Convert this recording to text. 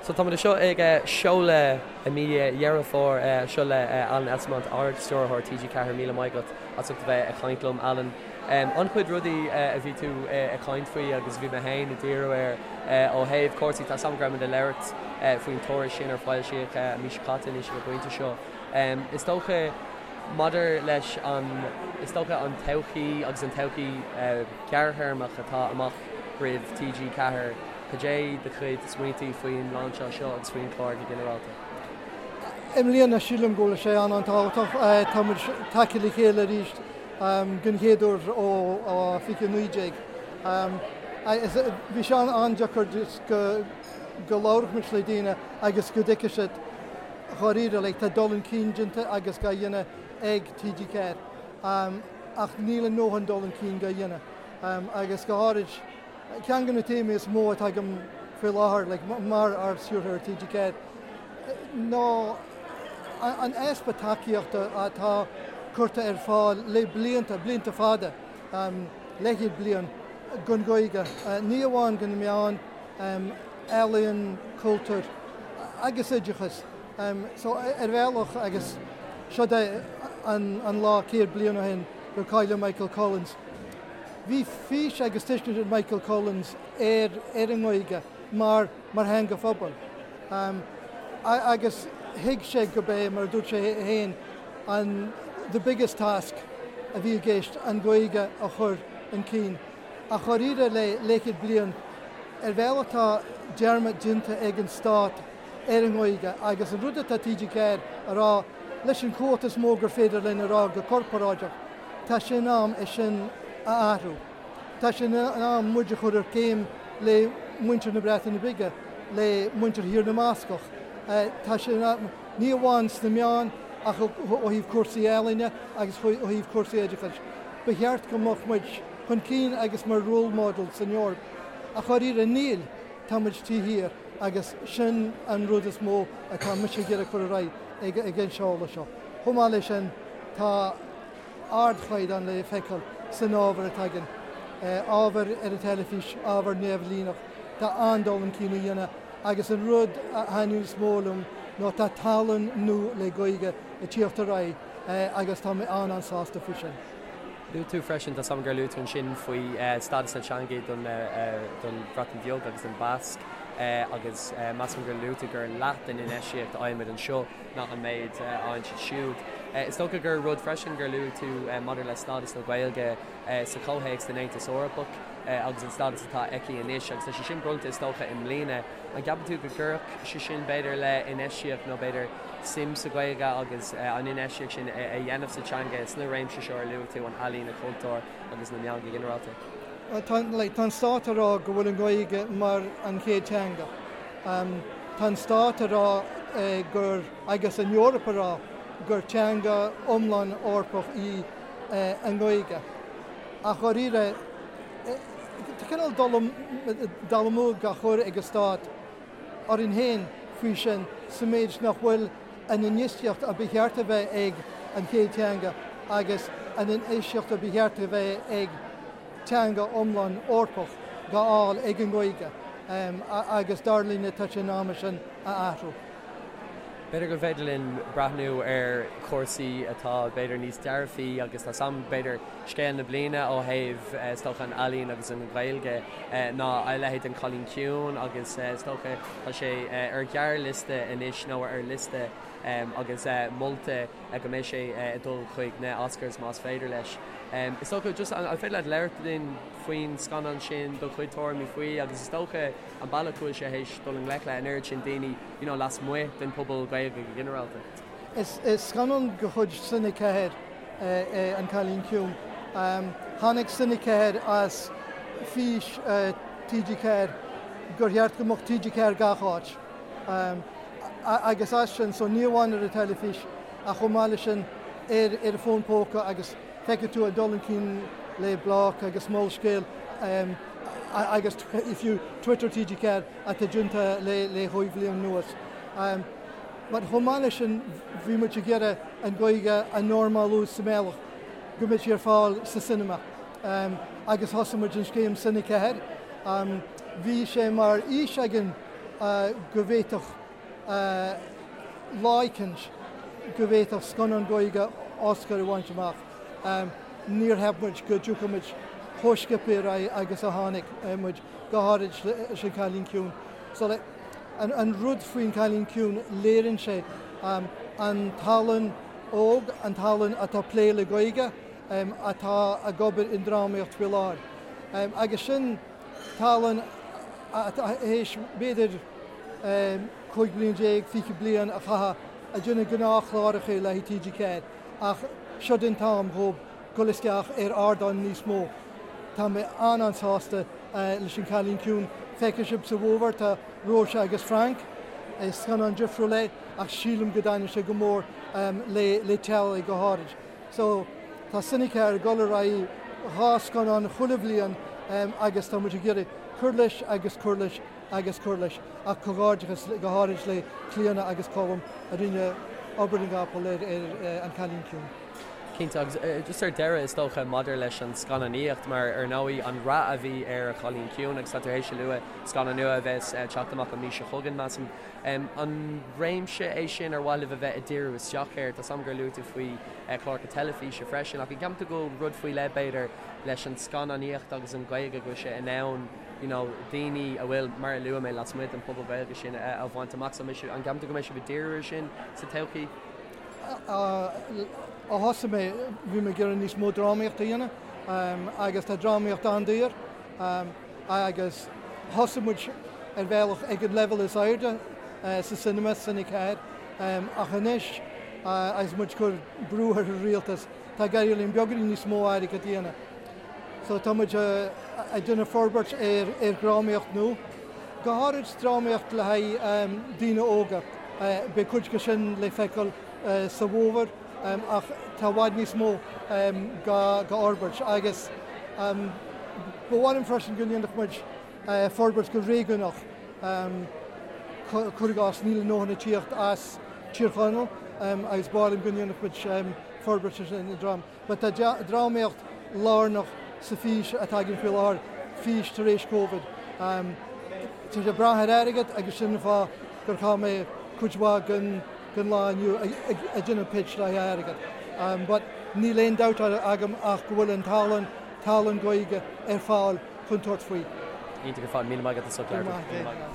So táimid anseo ag seoladh i mí Dheireadh Fómhair seo le Alan Esslemont, Ard-Stiúrthóir TG4. Míle maith agat as ucht a bheith ag caint liom, Alan. An-chuid rudaí a bhí tú ag caint faoi agus a bhí mé féin ag díriú air ó thaobh cúrsaí, tá a fhios agam go raibh muid ag labhairt faoin tuairisc sin ar foilsíodh an mhí seo caite anois ag an bpointe seo. Is dócha maidir leis an, is dócha an todhchaí agus an todhchaí ghearrthéarmach atá amach roimh TG4, Cad é do chuid smaointí faoin lainseáil seo agus faoin chlár go ginearálta? I mbliana, sílim go bhfuil sé an-an-tábhachtach. Tá muid tagtha le chéile arís den chéad uair ó 2019. Bhí sé an-deacair go go labhródh muid le daoine agus go dtuigfeadh siad dháiríre, like, tá dul chun cinn déanta agus á dhéanamh ag TG4 ach níl a ndóthain dul chun cinn á dhéanamh agus go háirid Ceann de na téamaí is mó atá agam faoi láthair like, mar Ard-Stiúrthóir TG4 ná an easpa tacaíochta atá curtha ar fáil le blianta, blianta fada, leathchéad bliain, don Ghaeilge, ní amháin do na meáin, ealaíon, cultúr agus oideachas. So ar bhealach agus seo é an lá 100 bliain ó shin gur cailleadh Michael Collins. Bhí fís agus tuiscint ag Michael Collins ar ar an nGaeilge mar mar theanga phobail agus thuig sé go b'é, mar a dúirt sé féin, an the biggest task a bhí i gceist an Ghaeilge a chur chun cinn. Ach dháiríre le leathchéad bliain, ar bhealach tá dearmad déanta ag an stát ar an nGaeilge agus an rud atá TG4 a rá leis an chumhacht is mó gur féidir linn a rá go corparáideach, Tá sé in am é sin a athrú. Tá sé in am muid a chur ar céim le muintir na Breataine Bige, le muintir Thír na mBascach. Tá sé in am, ní amháin sna meáin ach ó thaobh cúrsaí ealaíne agus ó thaobh cúrsaí oideachais. Ba cheart go mbeadh muid chun cinn agus mar role model san Eoraip. Ach dháiríre níl, tá muid taobh thiar agus sin an rud is mó atá mise ag iarraidh cur ar aghaidh ag an seoladh seo. Chomh maith leis sin, tá ardchaighdeán le feiceáil san ábhar atá againn, ábhar ar an teilifís, ábhar neamhlíneach. Tá an-dul chun cinn á dhéanamh agus an rud a thaitníonn is mó liom ná tá tallann nua le Gaeilge ag tíocht ar aghaidh agus tá mé an-an-sásta faoi sin. Luaigh tú freisin, tá a fhios agam gur luaigh tú ansin faoi stádas na teanga don Bhreatain Bheag agus don Bhasc agus measaim gur luaigh tú gur leath den infheistíocht a fhaighimid anseo ná an méid a fhaigheann siad siúd. Is dócha gur rud freisin gur luaigh tú maidir le stádas na Gaeilge sa chomhthéacs den Aontas Eorpach agus an stádas atá aici anois agus tá sé sin bronnta is dócha i mbliana. An gceapann tú go gcuirfeadh sé sin b'fhéidir le infheistíocht nó b'fhéidir suim sa Ghaeilge agus an infheistíocht sin a dhéanamh sa teanga sna réimsí seo ar luaigh tú, an ealaín, an cultúr agus na meáin go ginearálta? Tá an stát ag rá go bhfuil an Ghaeilge mar an chéad teanga. Tá an stát ag rá gur, agus an Eoraip ag rá, gur teanga iomlán Eorpach í an Ghaeilge. Ach dháiríre, tá cineál dul amú á chur ag an stát orainn féin faoi sin sa méid nach bhfuil an infheistíocht a ba cheart a bheith ag an chéad teanga agus an infheistíocht a ba cheart a bheith ag teanga iomlán Eorpach dhá fháil ag an nGaeilge agus dar linne tá sé in am é sin a athrú. B'fhéidir gur féidir linn breathnú ar chúrsaí atá b'fhéidir níos dearfaí agus tá a fhios agam b'fhéidir scéal na bliana ó thaobh is dócha an ealaín agus an Ghaeilge ná a leithéid den Cailín Ciúin agus is dócha tá sé ar ghearrliosta anois nó ar liosta agus molta go mbeidh sé ag dul chuig na Oscars más féidir leis. Is dócha just an féidir leat labhairt linn faoin scannán sin, do chuid tuairimí faoi agus is dócha an bealach go bhfuil sé théis dul i ngleic le an oiread sin daoine you know lasmuigh den pobal Gaeilge go ginearálta. Is scannán de chuid Cine 4 é An Cailín Ciúin. Tháinig Cine 4 as fís TG4 gur cheart go mbeadh TG4 gach áit. Agus as sin, so ní amháin ar an teilifís ach chomh maith leis sin ar ar an bhfón póca agus feicfidh tú ag dul chun cinn le Bloc agus Molscéal agus fiú Twitter TG4 atá déanta le le chúig bhliain anuas. But chomh maith leis sin bhí muid ag iarraidh an Ghaeilge a normalú sa mbealach go mbeidh sí ar fáil sa cinema agus thosaigh muid an scéim Cine 4. Bhí sé mar fhís againn. go bhféadfadh lá éicint go bhféadfadh scannán Gaeilge Oscar a bhaint amach. Níor cheap muid go dtiocfadh muid chomh sciobtha ar aghaidh agus a tháinig muid, go háirid leis An Cailín Ciúin. So like, an, an rud faoin Cailín Ciúin, léiríonn sé an tallann óg, an tallann atá ag plé le Gaeilge, atá ag obair i ndrámaíocht faoi láthair. Agus sin tallann atá théis b'fhéidir 15 bliain, 20 bliain a chaitheamh ag déanamh gnáthchláracha le haghaidh TG4 ach seo an t-am dhóibh dul isteach ar ardán níos mó. Tá mé an-an-sásta leis an Cailín Ciúin. Feicfidh sibh sa bhfómhar tá Róise agus Frank. Is scannán difriúil é ach sílim go dtaitneoidh sé go mór le teaghlaigh go háirid. So tá Cine 4 ag dul ar aghaidh 2 scannán chuile bhliain agus tá muid ag iarraidh cur leis agus cur leis agus cur leis. Ach comhghairdeachas go háirid le Clíona agus Colm a rinne obair na gcapall ar An Cailín Ciúin. Cinnte, agus just ar deireadh is dócha maidir leis an scannánaíocht, mar ar ndóigh an rath a bhí ar An Cailín Ciúin agus tá tú théis a lua scannán nua a bheas ag teacht amach an mhí seo chugainn, measaim. An réimse é sin ar mhaith libh a bheith ag díriú isteach air? Tá 's agam gur luaigh tú faoi chláracha teilifíse freisin, ach an gceapann tú go bhfuil rud faoi leith, b'fhéidir, leis an scannánaíocht agus an Ghaeilge go bhfuil sé in ann you know, daoine a bhfuil, mar a luaigh mé, lasmuigh den phobal Gaeilge sin a bhaint amach? So, an gceapann tú go mbeidh sibh ag díriú air sin sa todhchaí? Ó thosaigh mé, bhí mé ag iarraidh níos mó drámaíocht a dhéanamh agus tá drámaíocht an-daor agus thosaigh muid ar bhealach ag an leibhéal is airde sa cinema, Cine 4, ach anois agus muid ag cur brú ar an rialtas, tá ag éirí linn beagáinín níos mó airgead a dhéanamh. So tá muid ag déanamh forbairt ar dhrámaíocht nua, go háirid drámaíocht le haghaidh daoine óga. Beidh cuid de sin le feiceáil sa bhfómhar ach tá i bhfad níos mó go fhorbairt agus ba mhaith liom freisin go ndéanfadh muid forbairt go réigiúnach. Cuir i gcás, níl a ndóthain ag tíocht as Tír Chonaill agus ba mhaith liom go ndéanfadh muid forbairt ar an dráma. But tá drámaíocht lárnach sa fís atá againn faoi láthair, fís tar éis Covid. Tá sé ag brath ar airgead agus sin an fáth gur chaith mé cuid mhaith den lá inniu ag déanamh pitch le haghaidh airgead. But níl aon dabht agam ach go bhfuil an tallann, tallann Gaeilge ar fáil chun tabhairt faoi. Iontach ar fad. Míle maith agat as ucht labhairt.